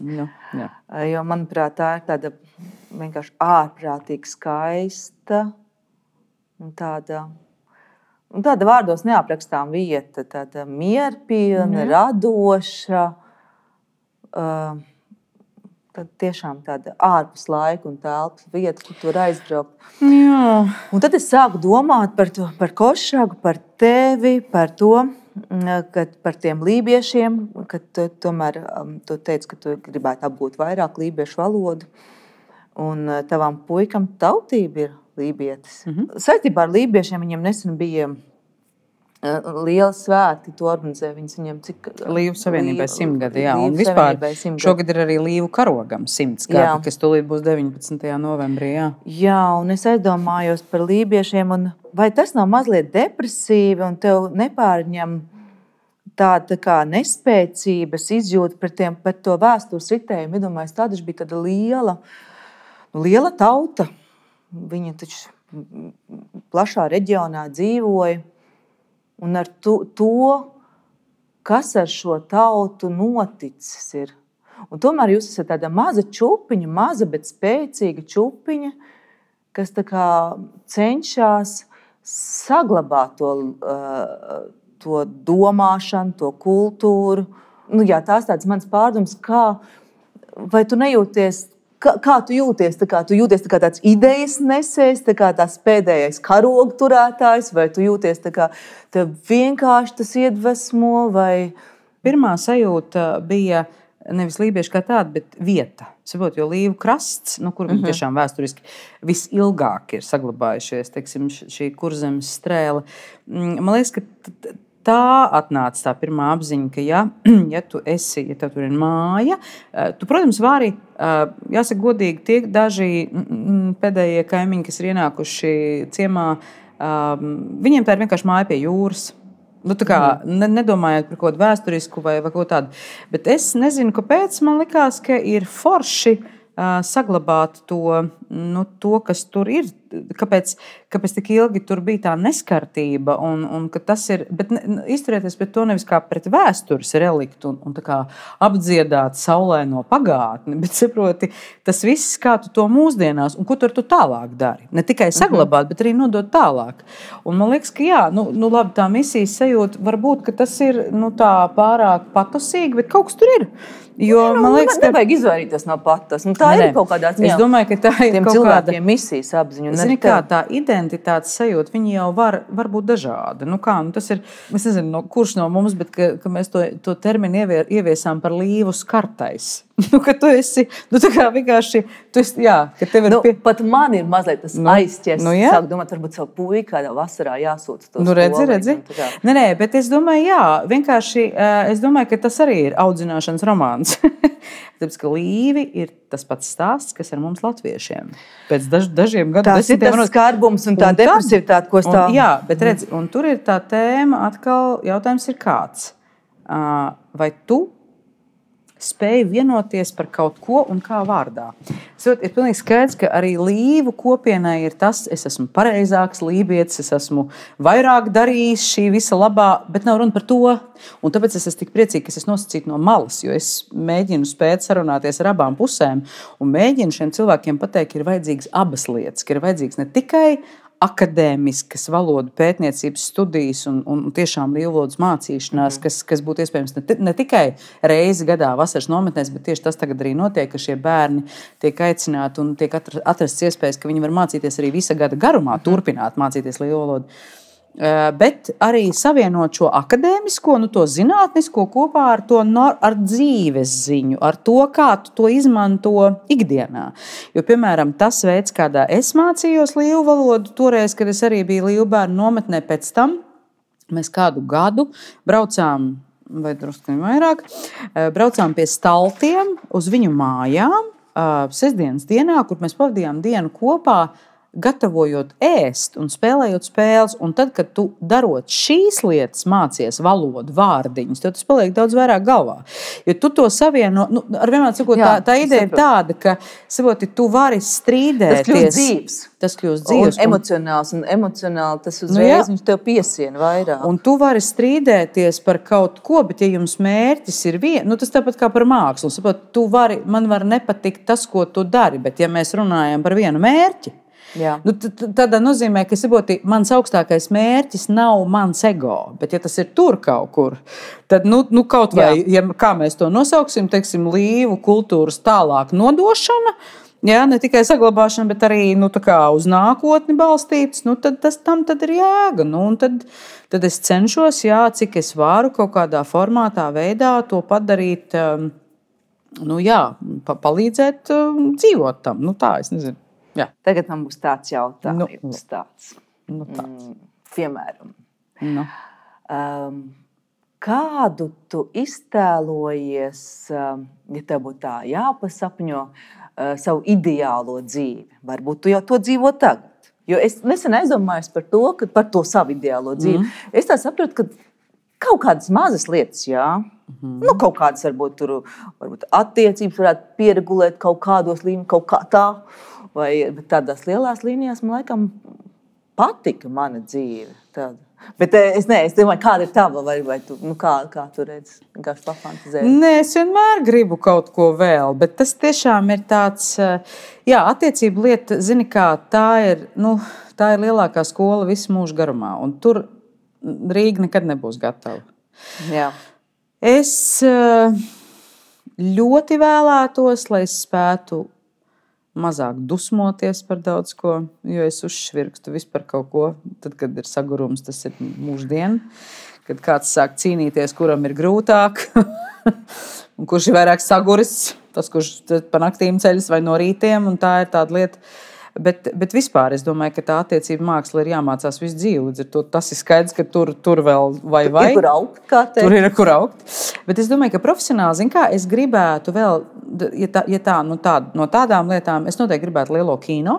Nu, jā. Jo, manuprāt, tā ir tāda vienkārši ārprātīgi skaista un tāda vārdos neaprakstām vieta, tāda mierpilna, radoša, tad tiešām tāda ārpus laika un telpas vieta, kur tu var aizbraukt. Jā. Un tad es sāku domāt par Košragu, par tevi, par to, par tiem lībiešiem, ka tomēr tu teici, ka tu gribētu apgūt vairāk lībiešu valodu. Un tavam puikam tautība ir lībietis. Saistībā ar lībiešiem viņam nesen bija liela svētki, to organizē viņam cik... Līvu savienībai 100 gadi, jā. Un vispār šogad ir arī Līvu karogam 100 gadi, kas tūlīt būs 19. novembrī, jā. Jā, un es aizdomājos par lībiešiem, un vai tas nav mazliet depresīvi, un tev nepārņem tāda kā nespēcības izjūta par to vēstures ritējumu? Iedomājies, tāda bija tāda liela tauta. Viņa taču plašā reģionā dzīvoja. Un ar to, kas ar šo tautu noticis ir. Un tomēr jūs esat tāda maza čupiņa, maza, bet spēcīga čupiņa, kas tā kā cenšas saglabāt to domāšanu, to kultūru. Nu, jā, tās tāds mans pārdoms, vai tu nejūties, kā tu jūties? Tu jūties kā tāds idejas nesējs, kā tās pēdējais karogu turētājs, vai tu jūties kā tev vienkārši tas iedvesmo? Vai... Pirmā sajūta bija nevis lībieši kā tāda, bet vieta. Saprot, jo Līvu krasts, kur viņi tiešām vēsturiski visilgāk ir saglabājušies, teiksim, šī kurzemes strēle. Man liekas, ka tā atnāca tā pirmā apziņa, ka ja tev tur ir māja, tu, protams, vari, jāsaka godīgi, tie daži pēdējie kaimiņi, kas ir ienākuši ciemā, viņiem tā ir vienkārši māja pie jūras. Nu, tā kā nedomājot par kaut kādu vēsturisku vai kaut tādu. Bet es nezinu, kāpēc man likās, ka ir forši saglabāt to, kas tur ir. Kāpēc tik ilgi tur bija tā neskartība un ka tas ir, bet izturēties pret to nevis kā pret vēstures reliktu un tā kā apdziedāt saulēno pagātni, bet saproti, tas viss, kā tu to mūsdienās un ko tu tālāk dari. Ne tikai saglabāt, bet arī nodot tālāk. Un man liekas, ka jā, labi, tā misijas sajūta varbūt, ka tas ir tā pārāk patosīgi, bet kaut kas tur ir. Jo, man liekas, ka nevajag izvairīties no patas. Tā ir kaut kādā ziņā. Es domāju, ka tā ir kaut kāda misijas apziņa. Zini, kā tā identitātes sajūta, viņi jau var būt dažādi. Tas ir, es nezinu, kurš no mums, bet ka mēs to terminu ieviesām par līvu skartais. Ka tu esi, tā kā vienkārši, jā, ka tev ir pat man ir mazliet tas aizķers. Sāk domāt, varbūt savu puiku kādā vasarā jāsūta to skolu. Redzi. Nē, bet es domāju, jā, vienkārši, es domāju, ka tas arī ir audzināšanas romāns. Tāpēc, ka līvi ir tas pats stāsts, kas ar mums latviešiem. Pēc dažiem gadu tas ir tas skarbums un tā depresivitāte, ko stāv. Jā, bet redzi, un tur ir tā tēma, atkal jautājums ir kāds. Vai tu spēju vienoties par kaut ko un kā vārdā? Ir pilnīgi skaidrs, ka arī līvu kopienai ir tas, es esmu pareizāks lībietis, es esmu vairāk darījis šī visa labā, bet nav runa par to. Un tāpēc es esmu tik priecīga, ka es nosacītu no malas, jo es mēģinu spēt sarunāties ar abām pusēm un mēģinu šiem cilvēkiem pateikt, ka ir vajadzīgas abas lietas, ka ir vajadzīgs ne tikai akadēmiskas valodu pētniecības studijas un tiešām līvu valodas mācīšanās, kas būtu iespējams ne tikai reizi gadā vasaras nometnēs, bet tieši tas tagad arī notiek, ka šie bērni tiek aicināti un tiek atrasts iespējas, ka viņi var mācīties arī visa gada garumā, turpināt mācīties līvu valodu. Bet arī savienot šo akadēmisko, to zinātnisko kopā ar dzīves ziņu, ar to, kā tu to izmanto ikdienā. Jo, piemēram, tas veids, kādā es mācījos līvu valodu, toreiz, kad es arī biju līvu bērnu nometnē pēc tam, mēs kādu gadu braucām vai drusku vairāk. Braucām pie Staltiem uz viņu mājām sestdienas dienā, kur mēs pavadījām dienu kopā, gatavojot ēst un spēlējot spēles. Un tad, kad tu darot šīs lietas, mācies valodu, vārdiņus, tad tas paliek daudz vairāk galvā. Jo tu to savieno, ar vienmēr sakot, tā ideja ir tāda, ka savoti, tu vari strīdēties. Tas kļūst dzīves. Un emocionāli tas uzreiz viņš tev piesiena vairāk. Un tu vari strīdēties par kaut ko, bet ja jums mērķis ir tas tāpat kā par mākslu. Sapot, man var nepatikt tas, ko tu dari, bet ja mēs runājam par vienu mērķi, tādā nozīmē, ka mans augstākais mērķis nav mans ego, bet ja tas ir tur kaut kur, tad kaut vai, kā mēs to nosauksim, teiksim, līvu kultūras tālāk nodošana, ne tikai saglabāšana, bet arī uz nākotni balstītas, tad ir jēga. Tad es cenšos, cik es varu kaut kādā formātā, veidā to padarīt, palīdzēt dzīvot tam. Tā, es nezinu. Jā. Tagad man būs tāds jautājums. Piemēram, kādu tu iztēlojies, ja tev būtu tā jāpasapņo, savu ideālo dzīvi? Varbūt tu jau to dzīvo tagad. Jo es nesen aizdomājos par to savu ideālo dzīvi. Es tā saprotu, ka kaut kādas mazas lietas, kaut kādas varbūt attiecības varētu pieregulēt kaut kādos līmeņos, kaut kā tā. Bet tādās lielās līnijās man laikam patika mana dzīve. Tāda. Bet es domāju, kāda ir tava, vai tu, kā tu redzi, vienkārši pafantazēji? Nē, es vienmēr gribu kaut ko vēl, bet tas tiešām ir tāds, attiecību lieta, zini kā, tā ir lielākā skola visu mūžu garumā, un tur Rīga nekad nebūs gatava. Jā. Es ļoti vēlētos, lai es spētu mazāk dusmoties par daudz ko, jo es uzšvirkstu vispār kaut ko. Tad, kad ir sagurums, tas ir mūždien. Kad kāds sāk cīnīties, kuram ir grūtāk, un kurš ir vairāk saguris, tas, kurš pa naktīm ceļas vai no rītiem, un tā ir tāda lieta. Bet vispār es domāju, ka tā attiecība māksla ir jāmācās visu dzīvi. Līdz ar to tas ir skaidrs, ka tur vēl vai. Ir kur augt, kā teikt. Tur ir kur augt. Bet es domāju, ka profesionāli, zin kā, es gribētu vēl, no tādām lietām, es noteikti gribētu lielo kino.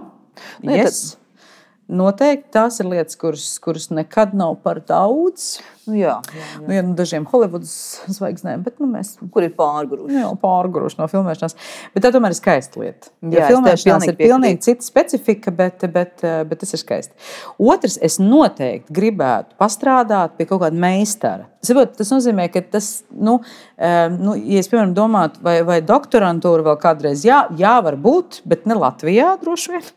Noteikti tās ir lietas, kuras nekad nav par daudz. Dažiem Holivudas zvaigznēm, bet mēs... Kur ir pārguruši? Pārguruši no filmēšanās. Bet tā tomēr ir skaista lieta. Filmēšanās ir pilnīgi cita specifika, bet tas ir skaisti. Otrs, es noteikti gribētu pastrādāt pie kaut kāda meistara. Tas nozīmē, ka tas, ja es, piemēram, domātu, vai doktorantūra vēl kādreiz, var būt, bet ne Latvijā droši vien.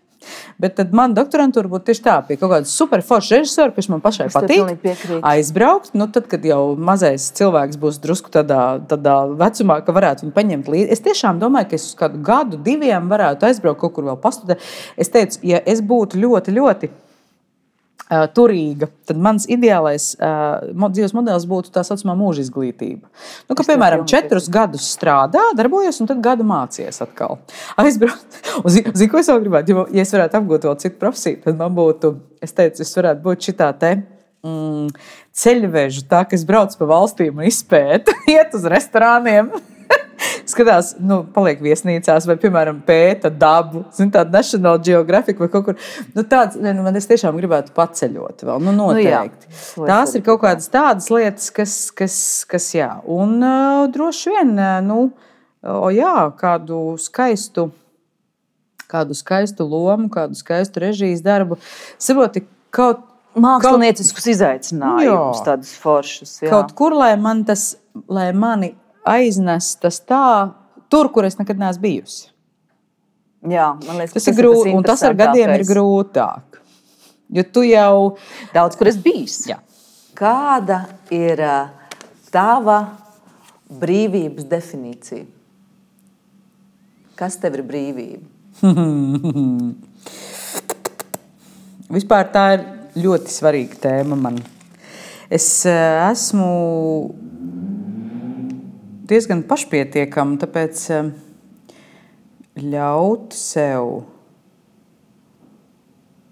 Bet tad man doktorantūra būtu tieši tā, pie kaut kāda superforša režisora, kas man pašai patīk, aizbraukt. Tad, kad jau mazais cilvēks būs drusku tādā vecumā, ka varētu viņu paņemt līdzi. Es tiešām domāju, ka es uz kādu gadu, 2 varētu aizbraukt kaut kur vēl pastudēt. Es teicu, ja es būtu ļoti, ļoti turīga, tad mans ideālais dzīves modelis būtu tā saucamā mūža izglītība. Piemēram, 4 gadus strādā, darbojos, un tad gadu mācies atkal. Aizbraukt. Zini, ko es vēl gribētu? Ja es varētu apgūt vēl citu profesiju, tad man būtu, es teicu, es varētu būt šitā ceļvežu, tā, ka es braucu pa valstīm un izpētu, iet uz restorāniem. Skatās, paliek viesnīcās vai, piemēram, pēta dabu, tāda National Geographic vai kaut kur. Man es tiešām gribētu paceļot vēl, noteikti. Tās ir kaut kādas tādas lietas, kas jā. Un droši vien, kādu skaistu lomu, kādu skaistu režijas darbu. Saproti, mākslinieciskus izaicinājumus, tādus foršus. Jā. Kaut kur, lai mani aiznes tas tur, kur es nekad neesmu bijusi. Jā, man liekas, tas ir grūti, un tas ar gadiem ir grūtāk. Jo tu jau daudz, kur esi bijis. Jā. Kāda ir tava brīvības definīcija? Kas tev ir brīvība? Vispār tā ir ļoti svarīga tēma man. Es esmu diezgan pašpietiekama, tāpēc ļaut sev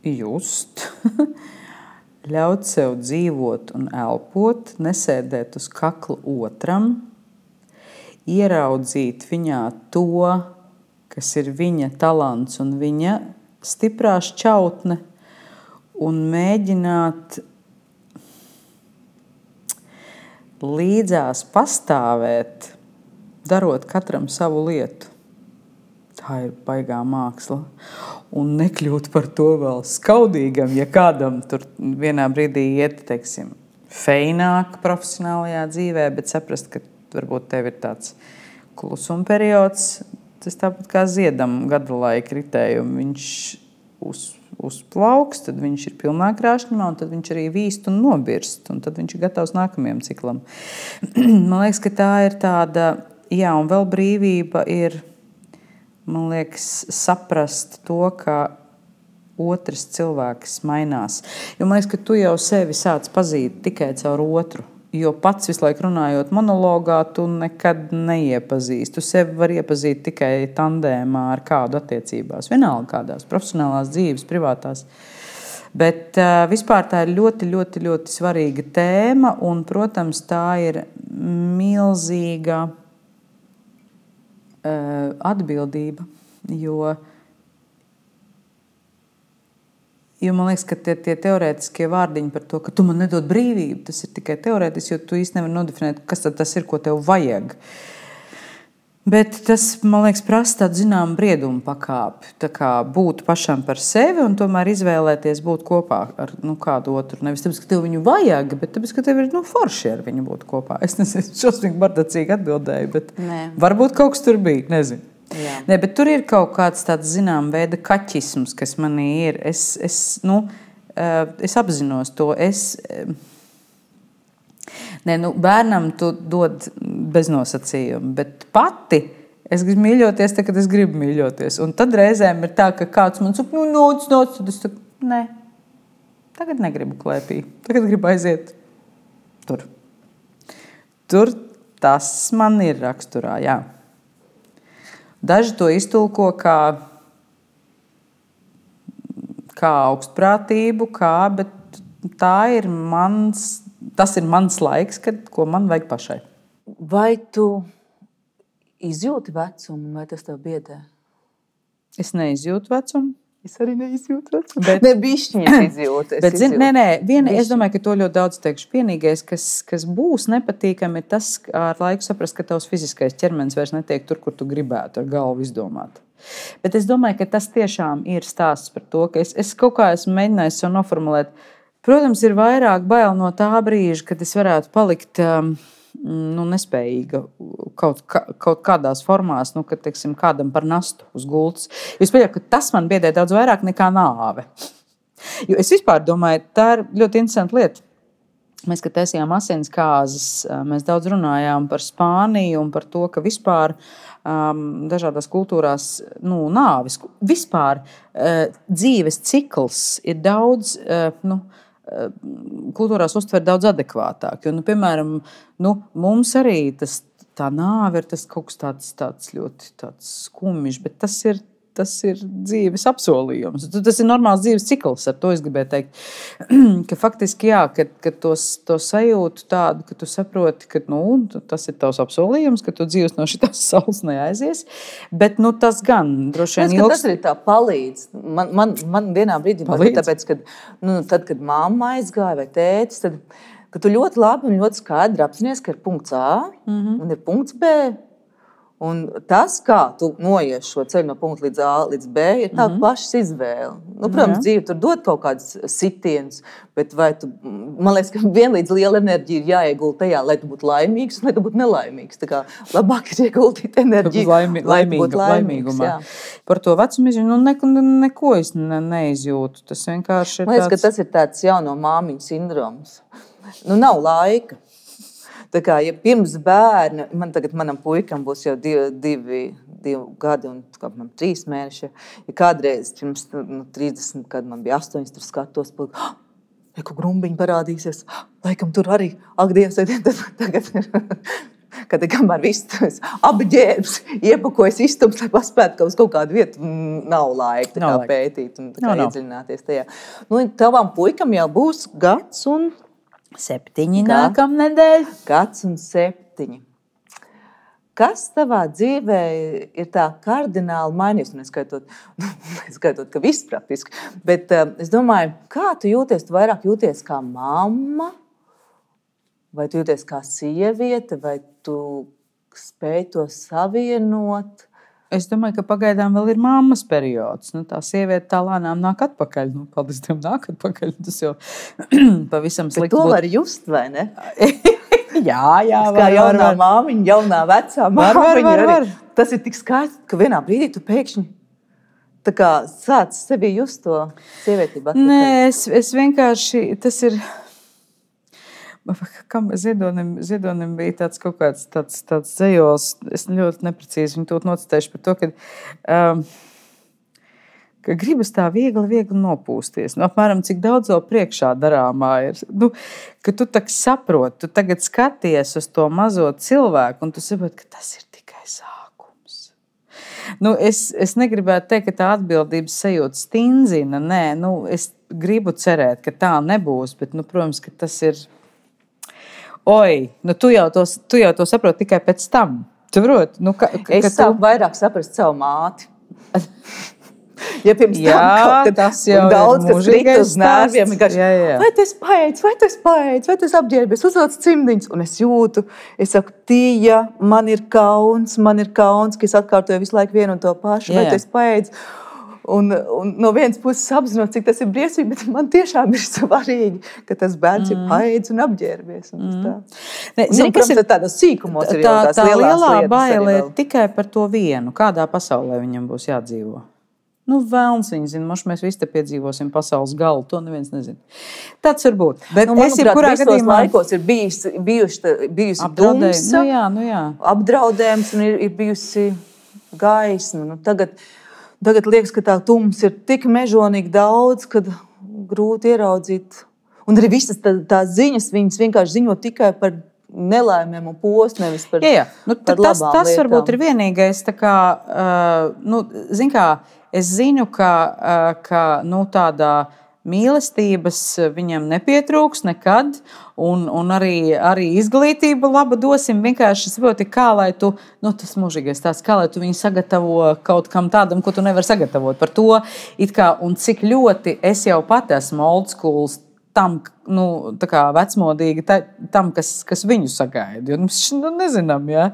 just ļaut sev dzīvot un elpot, nesēdēt uz kakla otram, ieraudzīt viņā to, kas ir viņa talants un viņa stiprā šķautne, un mēģināt līdzās pastāvēt, darot katram savu lietu. Tā ir baigā māksla. Un nekļūt par to vēl skaudīgam, ja kādam tur vienā brīdī iet, teiksim, feināk profesionālajā dzīvē, bet saprast, ka varbūt tev ir tāds klusuma periods. Tas tāpat kā ziedam gada laika ritējumu. Viņš uzplauks, tad viņš ir pilnā krāšņumā, un tad viņš arī vīst un nobirst, un tad viņš ir gatavs nākamajam ciklam. Man liekas, ka tā ir tāda, jā, un vēl brīvība ir, man liekas, saprast to, ka otrs cilvēks mainās. Jo man liekas, ka tu jau sevi sāc pazīt tikai caur otru. Jo pats visu laiku runājot monologā, tu nekad neiepazīsti. Tu sevi var iepazīt tikai tandēmā ar kādu attiecībās. Vienalga kādās profesionālās dzīves, privātās. Bet vispār tā ir ļoti, ļoti, ļoti svarīga tēma. Un, protams, tā ir milzīga atbildība. Jo man liekas, ka tie teorētiskie vārdiņi par to, ka tu man nedod brīvību, tas ir tikai teorētiski, jo tu īsti nevari nodefinēt, kas tad tas ir, ko tev vajag. Bet tas, man liekas, prasa tādu zināmu briedumu pakāpi. Tā kā būt pašam par sevi un tomēr izvēlēties būt kopā ar kādu otru. Nevis tāpēc, ka tev viņu vajag, bet tāpēc, ka tev ir forši ar viņu būt kopā. Es nezinu, šausmīgi bardacīgi atbildēju, bet varbūt kaut kas tur bija, nezinu. Ne, bet tur ir kaut kāds tāds zinām veida kaķisms, kas manī ir. Es apzinos to. Bērnam tu dod bez nosacījuma, bet pati es gribu mīļoties, tad, kad es gribu mīļoties. Un tad reizēm ir tā, ka kāds man saka, nāc, tad es saku, nē, tagad negribu klēpī, tagad gribu aiziet tur. Tur tas man ir raksturā, jā. Daži to iztulko kā augstprātību, bet tas ir mans laiks, ko man vajag pašai. Vai tu izjūti vecumu, vai tas tev biedē? Es neizjūtu vecumu. Es arī neizjūtu vecumu. Ne bišķiņas izjūtu. Es domāju, ka to ļoti daudz teikšu. Vienīgais, kas būs nepatīkami, ir tas, ar laiku saprast, ka tavs fiziskais ķermenis vairs netiek tur, kur tu gribētu ar galvu izdomāt. Bet es domāju, ka tas tiešām ir stāsts par to, ka es kaut kā esmu mēģinājis sev noformulēt. Protams, ir vairāk bail no tā brīža, kad es varētu palikt nespējīga kaut kādās formās, kad, teiksim, kādam par nastu uz gultas. Es pieļauju, ka tas man biedē daudz vairāk nekā nāve. Jo es vispār domāju, tā ir ļoti interesanta lieta. Mēs, kad taisījām asinskāzes, mēs daudz runājām par Spāniju un par to, ka vispār dažādās kultūrās nāves, vispār dzīves cikls ir daudz, kultūrās uztver daudz adekvātāk. Jo, piemēram, mums arī tā nāve ir tas kaut kas tāds ļoti skumjš, bet tas ir dzīves apsolījums. Tas ir normāls dzīves cikls, ar to es gribēju teikt. Ka faktiski, jā, ka to sajūtu tādu, ka tu saproti, ka tas ir tavs apsolījums, ka tu dzīves no šitās saules neaizies. Bet tas gan droši vien ilgs. Tas arī tā palīdz. Man vienā brīdī palīdz, tāpēc, tad, kad mamma aizgāja vai tētis, tad ka tu ļoti labi un ļoti skaidri apzinies, ka ir punkts A un ir punkts B. Un tas, kā tu noies šo ceļu no punkta līdz A līdz B, ir tā pašas izvēle. Protams, dzīve tur dod kaut kādus sitienus, bet man liekas, ka vienlīdz liela enerģija ir jāiegulda tajā, lai tu būtu laimīgs un lai tu būtu nelaimīgs. Tā kā labāk ir ieguldīt enerģiju, lai tu būtu laimīgs. Par to vecumu izjūtu, neko es neizjūtu. Tas vienkārši ir man liekas, ka tas ir tāds jauno māmiņu sindroms. Nav laika. Tā kā, ja pirms bērna, manam puikam būs jau divi gadi un 3 mēneši, ja kādreiz pirms 30, kad man bija 8, tur skatos, ko grumbiņi parādīsies, laikam tur arī, ak, Dievs, tagad ir kad kamēr viss apģērbs, iepakojas istums, lai paspētu, ka uz kaut kādu vietu nav laika pētīt un iedziļināties tajā. Nu, tavam puikam jau būs gads un 7 nākamnedēļ. Gads un 7. Kas tavā dzīvē ir tā kardināli mainījies? Neskaitot, ka viss praktiski. Bet es domāju, kā tu jūties? Tu vairāk jūties kā mamma? Vai tu jūties kā sieviete? Vai tu spēj to savienot? Es domāju, ka pagaidām vēl ir mammas periods. Nu, tā sieviete tā lēnām nāk atpakaļ. Nu, paldies Dievam, nāk atpakaļ. Tas jau pavisam slikti. Bet to var just, vai ne? Jā, kā jaunā māmiņa, jaunā vecā māmiņa. Var. Tas ir tik skaisti, ka vienā brīdī tu pēkšņi tā kā sāc sevi just to sievietību atpakaļ. Nē, es vienkārši, tas ir, kam Ziedonim bija tāds kaut kāds tāds dzejols, es ļoti neprecīzi viņu to nocitēšu par to, ka gribas tā viegli nopūsties. Nu, apmēram, cik daudz vēl priekšā darāmā ir. Nu, ka tu tak saproti, tu tagad skaties uz to mazo cilvēku, un tu saproti, ka tas ir tikai sākums. Nu, es negribētu teikt, ka tā atbildības sajūta stindzina. Nē, nu, es gribu cerēt, ka tā nebūs, bet, nu, protams, ka tas ir... Nu, tu jau to saproti tikai pēc tam. Tu proti? Nu, es sāku vairāk saprast savu māti. Ja pirms tam tas jau daudz, kas rita uz nerviem, vai tu esi paēdis, vai tu esi apģērbies, uzvelc cimdiņus, un es jūtu, es saku, Tija, man ir kauns, ka es atkārtoju visu laiku vienu un to pašu, vai tu esi paēdis, un no vienas puses apzinot, cik tas ir briesmīgi, bet man tiešām ir svarīgi, ka tas bērns ir paēdis un apģērbies. Protams, tādos sīkumos ir jau tās lielās lietas. Tā lielā baile ir tikai par to vienu, kādā pasaulē viņam būs jādzīvo. Nu, vēlns viņi zina, moši mēs visi te piedzīvosim pasaules galu, to neviens nezina. Tāds var būt. Bet manuprāt, visos laikos ir bijusi dumsa, apdraudējums un ir bijusi gaisma. Nu, tagad liekas, ka tā tums ir tik mežonīgi daudz, kad grūti ieraudzīt. Un arī visas tās ziņas, viņas vienkārši ziņo tikai par nelaimēm un postu, nevis par Nu, par labām tas lietām. Varbūt ir vienīgais, tā kā, zin kā, es zinu, ka nu, tādā mīlestības viņam nepietrūks nekad, un arī izglītība laba dosim. Vienkārši saproti, kā lai tu, tas mūžīgais tāds, kā lai tu viņu sagatavo kaut kam tādam, ko tu nevari sagatavot. Par to, it kā, un cik ļoti es jau pat esmu old schools tam, tā kā vecmodīgi tam, kas viņu sagaida. Jo, nezinām, ja?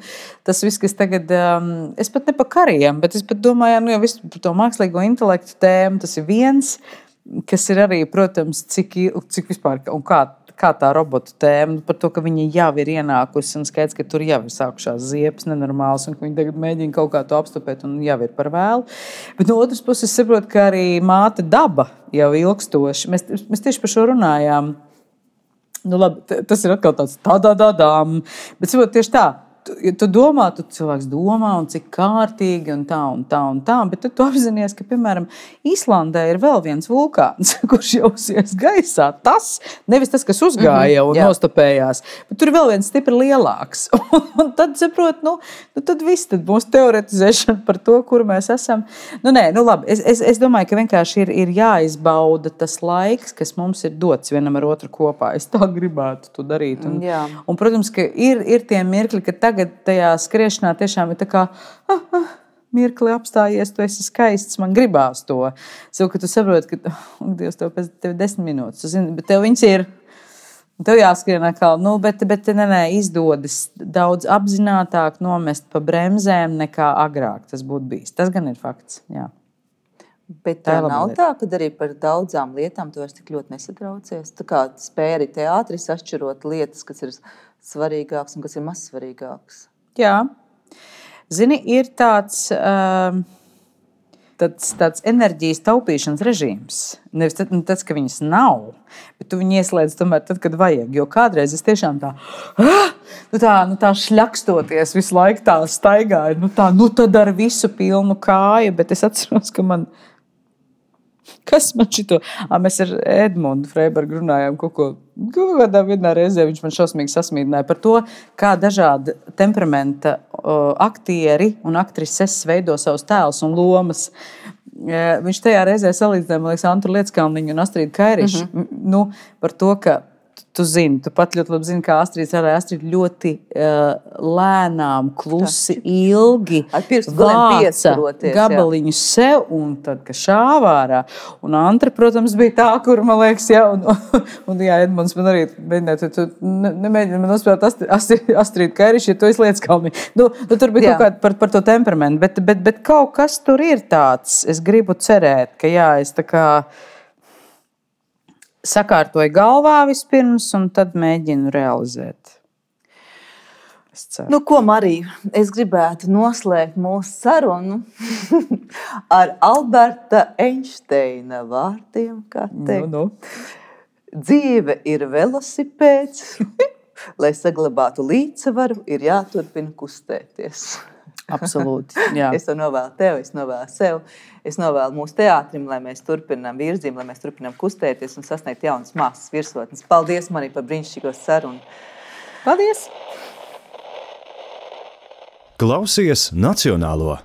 Tas viss, kas tagad, es pat ne par kariem, bet es pat domāju, jau visu par to mākslīgo intelektu tēmu, tas ir viens, kas ir arī, protams, cik vispār, un kā tā robotu tēma, par to, ka viņa jau ir ienākusi, un skaidrs, ka tur jau ir sākušās ziepes nenormāls, un ka viņi tagad mēģina kaut kā to apstopēt, un jau ir par vēlu. Bet no otras puses saprotu, ka arī māte daba jau ilgstoši. Mēs tieši par šo runājām. Nu, labi, tas ir atkal tāds tā-da-da-dām, bet saprotu tieši tā. Tu domā, tu cilvēks domā, un cik kārtīgi, un tā, bet tad tu apzinies, ka, piemēram, Īslandē ir vēl viens vulkāns, kurš jau uzies gaisā. Tas, nevis tas, kas uzgāja un nostopējās, bet tur ir vēl viens stipri lielāks. Un tad, saprot, tad viss, tad būs teoretizēšana par to, kur mēs esam. Labi, es domāju, ka vienkārši ir jāizbauda tas laiks, kas mums ir dots vienam ar otru kopā. Es tā gribētu to darīt. Un protams, ka ir tie mirkļi, ka tagad tajā skriešanā tiešām ir tā kā mirkli apstājies, tu esi skaists, man gribās to. Savu, ka tu saproti, ka, Dievs, tev 10 minūtes, tu zini, bet tev viņas ir, tev jāskrien atkal, bet izdodas daudz apzinātāk nomest pa bremzēm nekā agrāk tas būtu bijis. Tas gan ir fakts, jā. Bet tā nav tā, ka arī par daudzām lietām tu vairs tik ļoti nesatraucies. Tā kā spēj arī teātris atšķirot lietas, kas ir svarīgāks un kas ir mazsvarīgāks. Jā. Zini, ir tāds enerģijas taupīšanas režīms. Nevis tas, ka viņas nav, bet tu viņu ieslēdz tomēr tad, kad vajag. Jo kādreiz es tiešām tā šļakstoties visu laiku tā staigāju. Tad ar visu pilnu kāju, bet es atceros, ka man Kas man šito? Mēs ar Edmundu Freibergu runājām kādā vienā reizē. Viņš man šausmīgi sasmīdināja par to, kā dažādi temperamenta aktieri un aktrises veido savus tēlus un lomas. Viņš tajā reizē salīdzināja, man liekas, Antru Lieckalniņu un Astrīdu Kairišu. Nu, par to, ka tu zini, tu pat ļoti labi zini, kā Astrīda strādāja. Astrīda ļoti lēnām, klusi, ilgi vāca gabaliņu sev, un tad, ka šāvārā. Un Antra, protams, bija tā, kur, man liekas, un jā, Edmunds man arī mēģināja, tu nemēģini man nospēlēt Astrīdu Kairišu, ja tu esi Lieckalniņu. Nu, tur bija kaut kāda par to temperamentu, bet kaut kas tur ir tāds. Es gribu cerēt, ka jā, es tā kā sakārtoju galvā vispirms, un tad mēģinu realizēt. Nu, ko, Marija, es gribētu noslēgt mūsu sarunu ar Alberta Einsteina vārdiem, kā teikt. Dzīve ir velosipēds, lai saglabātu līdzsvaru, ir jāturpina kustēties. Absolūti, jā. Es to novēlu tev, es novēlu sev, es novēlu mūsu teātrim, lai mēs turpinām virzību, lai mēs turpinām kustēties un sasniegt jaunas mākslas virsotnes. Paldies, Marija, par brīnišķīgo sarunu. Paldies! Klausies Nacionālo!